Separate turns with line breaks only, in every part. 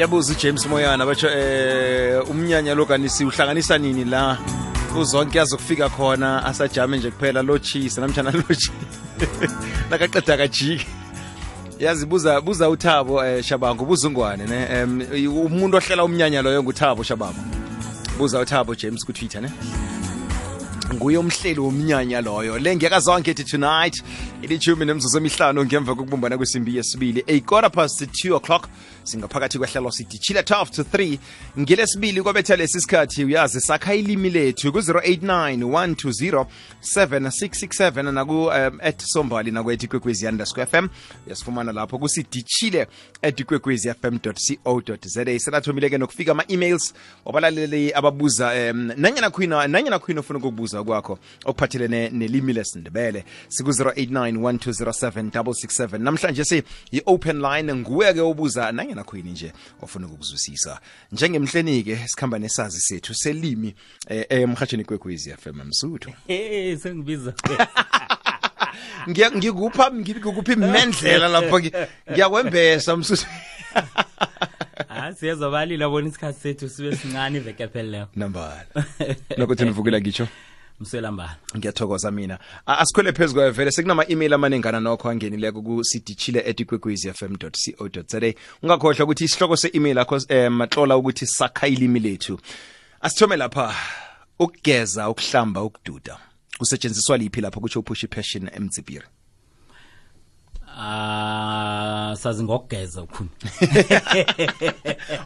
Ngiyabuza uJames Moyana batsho umnyanya lo kanisi uhlanganisa nini la uzonke yazokufika khona asajame nje kuphela lo cheese namtjana lo cheese nakaqeda kajiki yazi buza uThabo Shabangu buzungwane ne umuntu ohlela umnyanya loyo nguThabo Shabangu buza uThabo James ku Twitter ne nguye umhleli womnyanya loyo le ngiyakazonke tonight ilithumi nemzuzu emihlanu ngemva kokubumbana kwesimbi yesibili 2:15 singaphakathi kwehlelo sithi chila 12 to 3 ngelesibili kwabetha lesikhathi uyazi sakha ilimi lethu ku 0891207667 naku @sombali nakwethi @kwekwezi_fm yasifumana lapho kusidichile @kwekwezi_fm.co.za senathomile ke nokufika ama emails wabalaleli ababuza nanyana khwina ufuna ukubuza kwakho okuphathelene nelimi lesindebele siku 0891207667 namhlanje si i-open line nguwe ke ubuza nanyana khwini nje ofuna ukuzwisisa njengemhlenike sikhamba nesazi sethu selimi emhathweni kwekwezi FM Msuthu
sengibiza
ngikuphi imendlela lapho ngiyakwembesa Msuthu
siyazobalila bona isikhathi sethu sibe sincane iveke phela
nambala nokuthi nivukela ngitsho
Mselambala
ngiyathokoza mina asikhwele phezulu vele sekunama email amanengana nokho angenileko ku sidichile@kwekwezi_fm.co.za ungakhohlwa ukuthi isihloko se-email yakho matlola ukuthi sakha ilimi lethu asithome lapha ukugeza ukuhlamba ukududa kusetshenziswa liphi lapho kutsho uPushi Passion eMzibiri
sazi ngokugeza ukhuni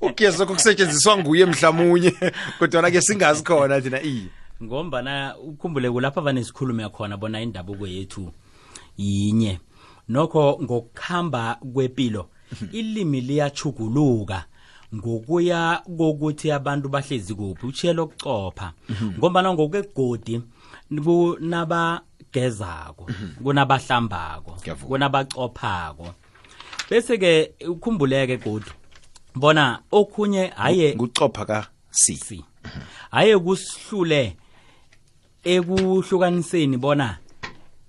ugeza kokusetshenziswa nguye mhlamunye kodwa ke singazi khona thina
ngombana ukhumbule kulapha vanesikhulume khona bona indabuko yethu yinye nokho ngokukhamba kwepilo ilimi liyachuguluka ngokuya kokuthi abantu bahlezi kuphi uchelo kucopha ngombana ngokwegodi kunabagezako kunabahlambako kunabacophako bese ke ukhumbuleke godi bona okhunye haye
ngucopha ka si
haye kusihlule ekuhlukaniseni bona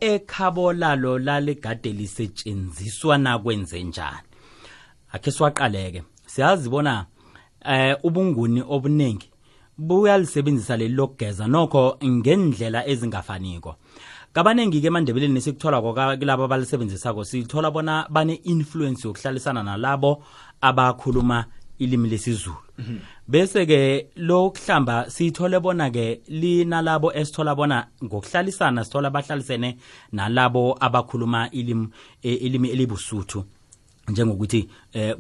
ekhabo lalo lalegade lisetshenziswa na kwenze njani akhe siwaqaleke siyazi bona ubunguni obuningi buyalisebenzisa leli lokugeza nokho ngendlela ezingafaniko kabanengi ke eMandebeleni nesikuthola kulabo abalisebenzisako sithola bona bane influence yokuhlalisana nalabo abakhuluma ilimi lesizulu bese ke lokuhlamba sithole bona ke linalabo esithola bona ngokuhlalisana sithola bahlalisene nalabo abakhuluma ilimi elibusuthu njengokuthi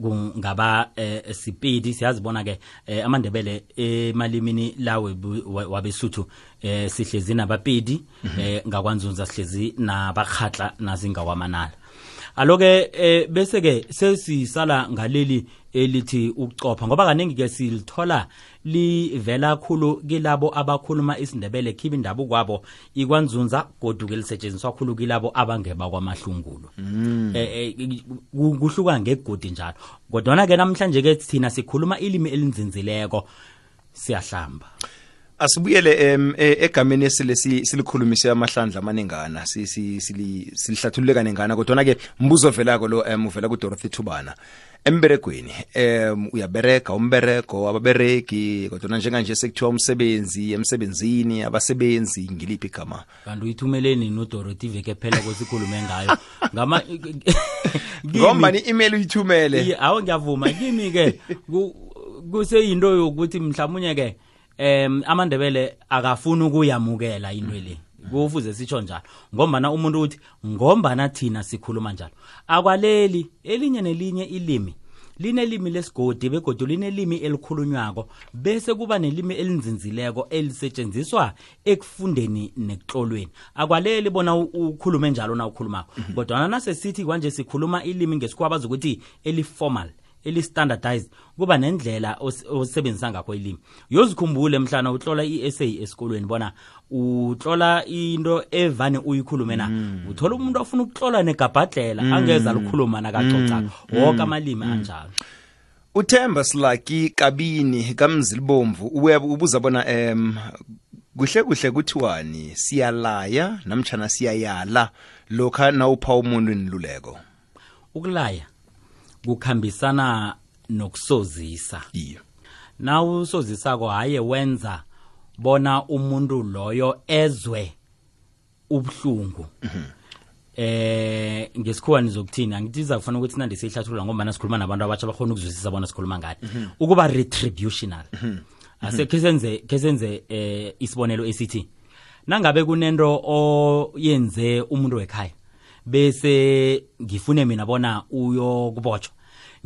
kungaba Sipedi siyazibona ke amandebele emalimini lawe wabesuthu sihlezi nabapedi ngakwanzunza sihlezi nabakhatla nazingawamanala aloke bese ke sesisala ngaleli elithi ukucopha ngoba kaningi ke silithola livela khulu kilabo abakhuluma isindebele khiba indabuko kwabo ikwanzunza goduke lisetshenziswa khulu kilabo abangeba kwamahlungulu kuhluka ngegodi njalo kodwa ke namhlanje ke thina sikhuluma ilimi elinzinzileko siyahlamba
asibuyele egameni silikhulumise amahlandla amanengana silihlathulule kanengana kodwa ke mbuzo velako lo uvela ku Dorothy Thubana emberegweni uyabereka umbereko ababereki kodwa njenganje sekuthiwa umsebenzi emsebenzini abasebenzi ngiliphi igama
kanti uyithumeleni no Dorothy veke phela kwesikhulume ngayo ngama
ngomba ni email uyithumele
awu ngiyavuma kimi ke kuseyinto yokuthi mhlawumnye ke amandebele akafuna ukuyamukela into le kufuze sitsho njalo ngombana umuntu uthi ngombana thina sikhuluma njalo akwaleli elinye nelinye ilimi linelimi lesigodi begodu linelimi elikhulunywako bese kuba nelimi elinzinzileko elisetshenziswa ekufundeni nekuhlolweni akwaleli bona ukhulume njalo na ukhulumako kodwa nase sithi kwanje sikhuluma ilimi ngesikwabaza ukuthi eliformal eli-standardized kuba nendlela osebenzisa ngakho ilimi yozikhumbule mhlana utlola i-essay esikolweni bona utlola into evane uyikhulume na uthola umuntu ofuna ukutlola negabhadlela angeza likhuluma nakacoca wonke amalimi anjalo
uThemba Silaki Kabini kaMzilibomvu ubuza bona kuhle kuthiwani siyalaya namtjana siyayala lokha nawupha umuntu inluleko
ukulaya kukhambisana nokusozisa.
Iya.
Na usozisako haye wenza bona umuntu loyo ezwe ubhlungu. Ngesikhuwa nizokuthina ngitiza kufana ukuthi nande sihlathulula ngoba sikhuluma nabantu abatsha bakhona ukuzwisisa bona sikhuluma ngani. Ukuba retributional. Ase kesenze isibonelo esithi nangabe kunento oyenze umuntu wekhaya bese ngifune mina bona uyokubotshwa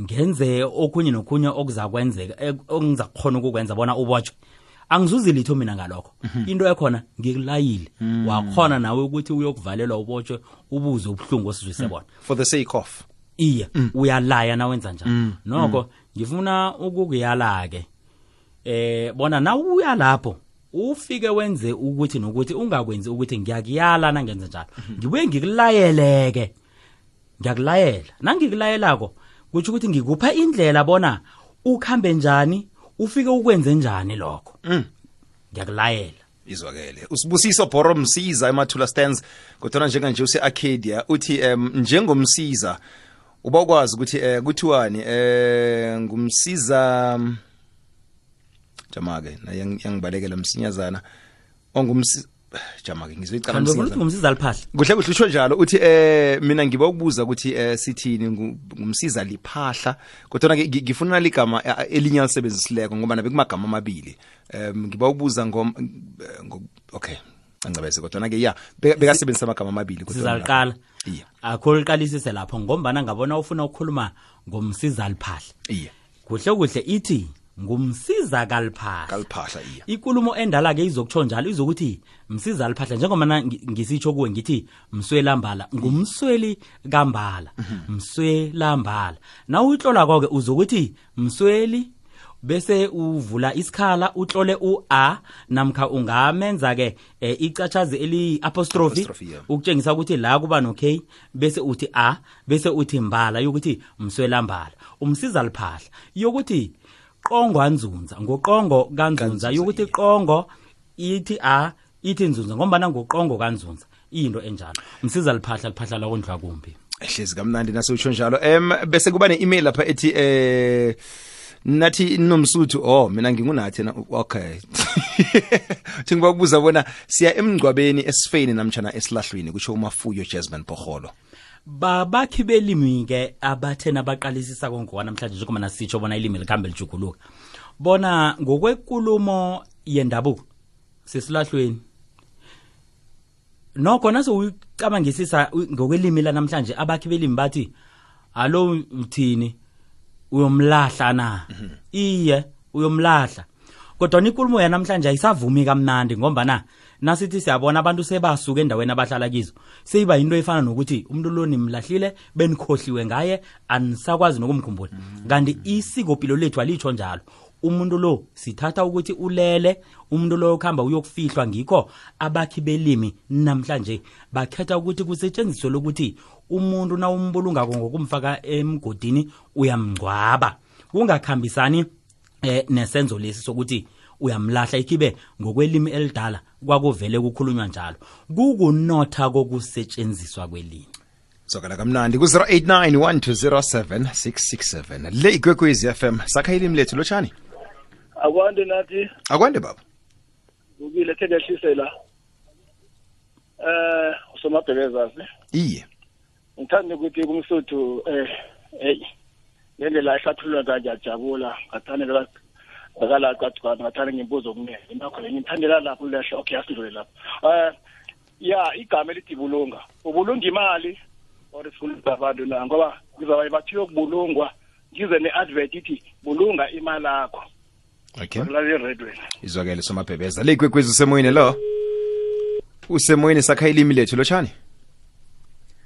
ngenze okunye nokunye okuzakwenzeka ongizakhona ukukwenza bona ubotshwe angizuzi litho mina ngalokho into ekhona ngikulayile wakhona nawe ukuthi uyokuvalelwa ubotshwe ubuze ubhlungu osizwise bona
for the sake of
iya uyalaya na wenza njalo noko ngifuna ukukuyala ke bona na uya lapho ufike wenze ukuthi nokuthi ungakwenzi ukuthi ngiyakuyala nangenza njalo ngibuye ngikulayeleke ngiyakulayela nangikulayelako kuthi ukuthi ngikupha indlela bona ukhambe njani ufike ukwenze njani lokho ngiyakulayela
izwakele usibusiso Bhoro Msiza emathula stands kodwa njenganje use Arcadia uthi njengomsiza uba ukwazi ukuthi kuthiwani ngumsiza jamake na yangibalekela msinyazana ongumsiza jamake ngizoyicala
msinyazana ngumsiza liphahla
kuhle usho njalo uthi mina ngiba ukubuza ukuthi sithini ngumsiza liphahla kodwa ke ngifuna ligama elinye alisebenzisileko ngoba nabe kumagama amabili ngiba ukubuza okay angcabese kodwa ke bekasebenzisa amagama amabili
kodwa sizaliqala akho liqalisise lapho ngombana ngabona ufuna ukukhuluma ngomsiza liphahla kuhle ithi ngumsiza kaliphahla
iya
ikulumo endala ke izokutsho njalo izokuthi msiza liphahla njengoba ngisitsho kuwe ngithi mswelambala ngumsweli kambala mswelambala na uyitlola konke uzokuthi msweli bese uvula isikhala utlole u-a namkha ungamenza ke icathazi eli apostrophe ukutshengisa ukuthi la kuba no k bese uthi a bese uthi mbala yokuthi mswelambala umsiza liphahla yokuthi qongwanzunza ngoqongo kanzunza yokuthi qongo ithi a ithi nzunza ngoba ngoqongo kanzunza into enjalo umsiza liphahla la kondlwa kumbi
ehlezi kamnandi nasitsho njalo bese kuba ne-email lapha ethi nathi nomsuthu mina ngingunathi okay ngiba ukubuza bona siya emngcwabeni esifeni namtjana esilahlweni kusho uMafuyo Jasmine Bhoholo
babakhi belimi ke abathena baqalisisa konke namhlanje njengoba nasitsho bona ilimi likhambe lijuguluka bona ngokwenkulumo yendabuko sesilahlweni nokho naso uyicabangisisa ngokwelimi la namhlanje abakhi belimi bathi alo uthini uyomlahla na iye uyomlahla kodwa inkulumo yanamhlanje ayisavumi kamnandi ngoba nasithi siyabona abantu sebasuka endaweni abahlala kizo seyiba into efana nokuthi umuntu lo nimlahlile benikhohliwe ngaye anisakwazi nokumkhumbula kanti isikopilo lethu alitsho njalo umuntu lo sithatha ukuthi ulele umuntu lo ukhamba uyokufihlwa ngikho abakhi belimi namhlanje bakhetha ukuthi kusetshenziswe lokuthi umuntu na umbulunga ngokumfaka emgodini uyamngcwaba kungakhambisani nesenzo lesi sokuthi uyamlahla ikibe ngokwelimi elidala kwakuvele kukhulunywa njalo kukunotha kokusetshenziswa kwelimi
sokala kamnandi ku 0891207667 le Ikwekwezi FM sakha ilimi lethu lochani
akwande nathi
akwande baba
ukile thekehlisela usomabhebezasi
iye
ngithanda ukuthi kumsuthu ngendlela ehlathulula ngajabula ngathanda akala qaqana ngathanda ngimbuzo okuningi ngakho ngithandela lapho lehla okay asidlule lapho igama elithi bulunga ubulunga imali or sifuna abantu na ngoba ngizaba bathiyo ukubulungwa ngize neadvert ithi bulunga imali yakho
okay
la radio
izwakele somabhebeza le Ikwekwezi usemoyeni lo usemoyeni sakha ilimi lethu lochani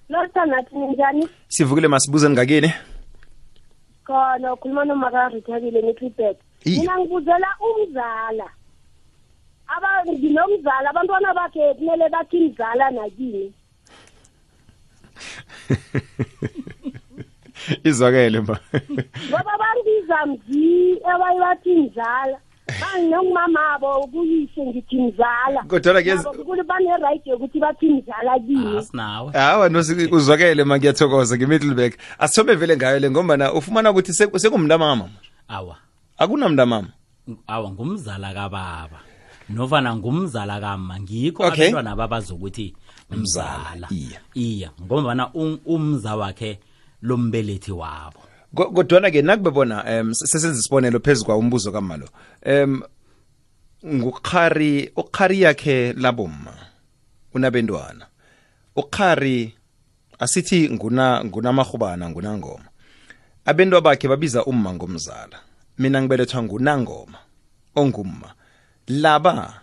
nathi njani
sivukile masibuze ngakini
khona ukhuluma noMakarithabile neTripet mina ngibuzela umzala nginomzala abantwana bakhe kumele bathi mzala nakini
izwakele mba
ngoba bangiza mzi abayibathi mzala bangomamabo kuyise ngithi mzala
kodwa ke
kule bane right yokuthi bathi mzala kimi
asinawe
hawa uzwakele ngiyathokoza ngeMiddelburg asithome vele ngayo le ngoba ufumana ukuthi sekumntamama
awa
akunamntamama
awa ngumzala kababa nofana ngumzala kama ngikho
Okay.
abantwana babazokuthi mzala iya ngoba umza wakhe lombelethi wabo
kodwa ke nakubebona sesenza isibonelo phezukwa umbuzo kamalo ukhari yakhe labomma unabendwana ukhari asithi ngunamahubana ngunangoma abendwa bakhe babiza umma ngomzala mina ngibelethwa ngunangoma ongumma laba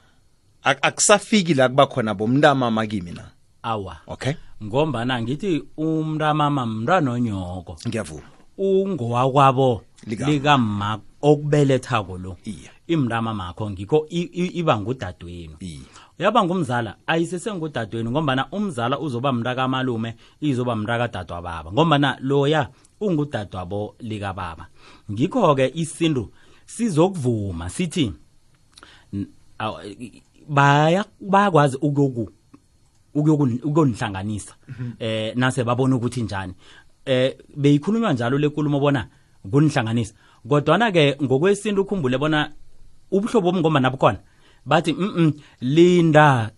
akusafiki la kuba khona bomntamama kimi na
awa
okay
ngombana ngithi umntamama mntwana onyoko
ngiyavuma
ungowakwabo likamma okubelethako lo
iya
imntamama makho ngikho iba ngudadweni uyaba ngumzala ayisesengudadweni ngombana umzala uzoba mntaka malume izoba mntaka dadwa baba ngombana loya ungudadwabo lika baba ngikho ke isintu sizokuvuma sithi bayakwazi ukuyonihlanganisa nase babona ukuthi njani beyikhulunywa njalo lenkulumo bona kunihlanganisa kodwa ke ngokwesintu ukhumbule bona ubuhlobo bomngoma nabukhona bathi linda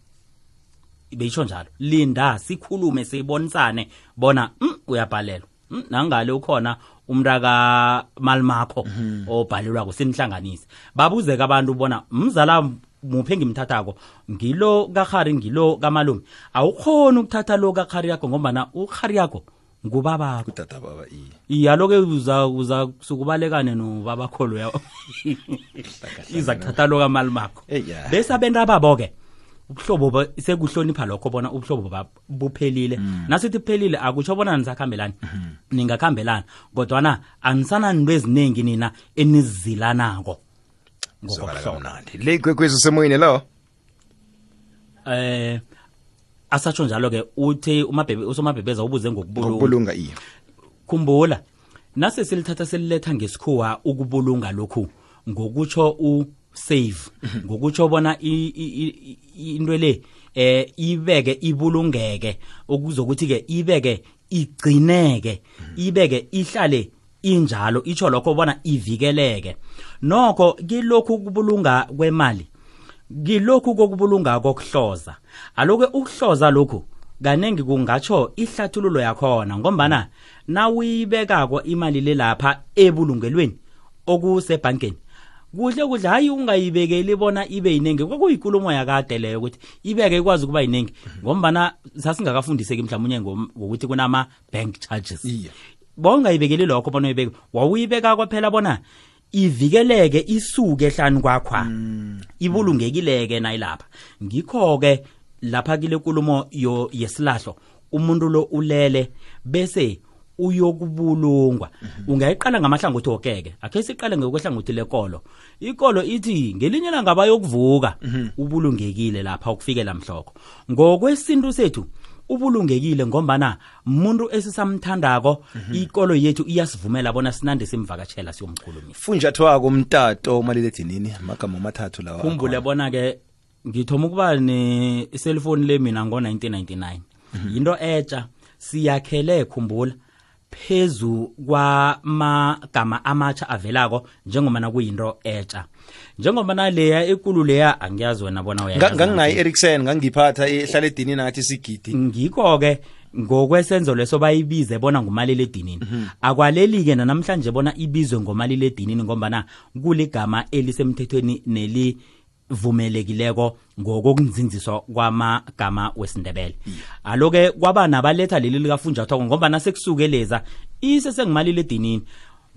beyisho njalo linda sikhulume sibonisane bona uyabhalelwa nangale ukhona umntaka malimakho obhalelwa kusinihlanganise babuzeka abantu bona mzala muphe ngimthathako ngilo kakhari ngilo kamalume awukhona ukuthatha lo kakhari yakho ngoba ukhari yakho ngubaba
kutata baba
iya loke uza sukubalekane nobaba kholo yawo iza kuthatha lo kamalimakho bese abenta babo ke ubuhlobo sekuhlonipha lokho bona ubuhlobo buphelile nasithi kuphelile akutsho bona nisakhambelana ningakhambelana kodwa anisana into eziningi nina enizilanako
ngokuhlomnandi le kwekwezi semoyini lo
asatsho njalo ke uthi usomabhebeza ubuze
ngokubulunga iya
khumbula nase silithatha seliletha ngesikhuwa ukubulunga lokhu ngokutsho save ngokutsho bona into le ibeke ibulungeke okuzokuthi ke ibeke igcineke ibeke ihlale injalo itsho lokho bona ivikeleke nokho kilokhu kubulunga kwemali kilokhu kokubulunga kokuhloza aloke ukuhloza lokhu kanengi kungatsho ihlathululo yakhona ngombana nawuyibekako imali le lapha ebulungelweni okusebankeni kuhle hayi ungayibekeli bona ibe yinengi kwakuyikulumo yakade leyo ukuthi ibeke ikwazi kuba yinengi ngombana sasingakafundiseki mhlawumnye ngokuthi kunama bank charges bongayibekeli lokho bona uyibeke wawuyibeka kwaphela bona ivikeleke isuke ehlani kwakho ibulungekileke nayilapha ngikho ke lapha kile nkulumo yesilahlo umuntu lo ulele bese uyokubulungwa ungayiqala ngamahlangothi okeke akhe siqale ngokwehlangothi lekolo ikolo ithi ngelinye langa bayokuvuka ubulungekile lapha ukufikela mhloko ngokwesintu sethu ubulungekile ngombana umuntu esisamthandako ikolo yethu iyasivumela bona sinande simvakatshela siyomkhulumisa
funjathwako umtato maliledinini amagama amathathu lawa
khumbule bona ke ngithoma ukuba ne cellphone le mina ngo1999 into etsha siyakhele khumbula phezu kwamagama amatsha avelako njengoba kuyinto etsha njengoba leya ekulu leya angiyazi wena bona uyayazi
nganginayi Ericsson ngangiphatha ehlala edini nathi sigidi
ngikho ke ngokwesenzo leso bayibize bona ngumaliledinini akwaleli ke namhlanje bona ibizwe ngomaliledinini ngoba kuligama elisemthethweni nelivumelekileko ngokunzinziswa kwamagama wesindebele aloke kwaba nabaletha leli likafunjathwako ngoba sekusukeleza isesengumaliledinini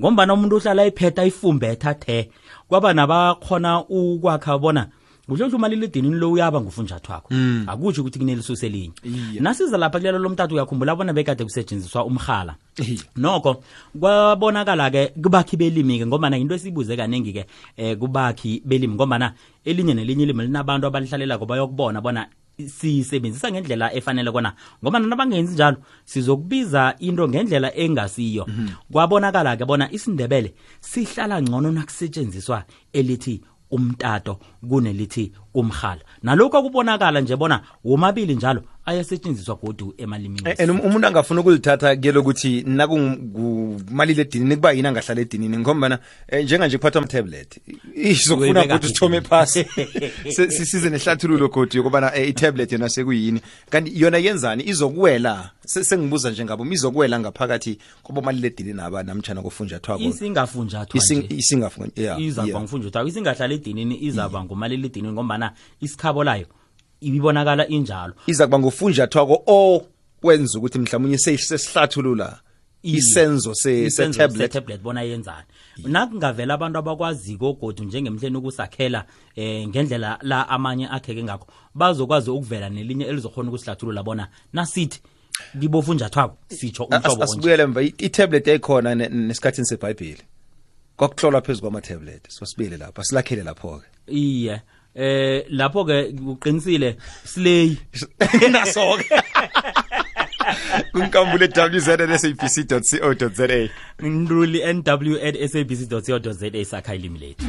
ngoba umuntu uhlala iphetha ifumbetha the kwaba nabakhona ukwakha bona uhlelo umaliledinini lo uyaba ngufunjathwako akutsho ukuthi kuneliso elinye nasiza lapha kulelo lomtatu uyakhumbula bona bekade kusetshenziswa umkhala nokho kwabonakala ke kubakhi belimi ke ngoba into esibuze kanengi ke kubakhi belimi ngoba elinye nelinye ilimi linabantu abalihlalela ngoba bayokubona bona sisebenzisa ngendlela efanele kona ngoba nabangenzi njalo sizokubiza into ngendlela engasiyo kwabonakala ke bona isindebele sihlala ngcono nakusetshenziswa elithi umtato kunelithi umkhala nalokho akubonakala nje bona womabili njalo ayasetshenziswa godu emalimini
umuntu angafuna ukulithatha kuyelo ukuthi nakumalile edinini kuba yini angahlala edinini ngombana njenganje kuphatha ama-tablet izokufuna ukuthi uthome phasi sisize nehlathululo godi yokubana i-tablet yona sekuyini kanti yona yenzani izokuwela sengibuza njengabo izokuwela ngaphakathi kobomalile edinini aba namtshana kufunjathwako
isingafunjathwako izaba ngufunjathwako isingahlala edinini izaba ngumalile edinini ngombana isikhabo layo ibibonakala injalo
iza kuba ngufunjathwako okwenza ukuthi mhlawumnye sesihlathulula isenzo se-tablet
bona yenzani nakungavela abantu abakwaziko godu njengemhleni ukusakhela ngendlela la amanye akheke ngakho bazokwazi ukuvela nelinye elizokhona ukusihlathulula bona nasithi kibofunjathwako sitsho umhlobo
asibuyele mva i-tablet ekhona nesikhathini seBhayibheli kwakuhlolwa phezulu kwama-tablet sibuyele lapha silakhele lapho-ke
iye lapho ke uqinisile slay
naso-ke kunkambule www.sabc.co.za
nruli nw@sabc.co.za sakha ilimi lethu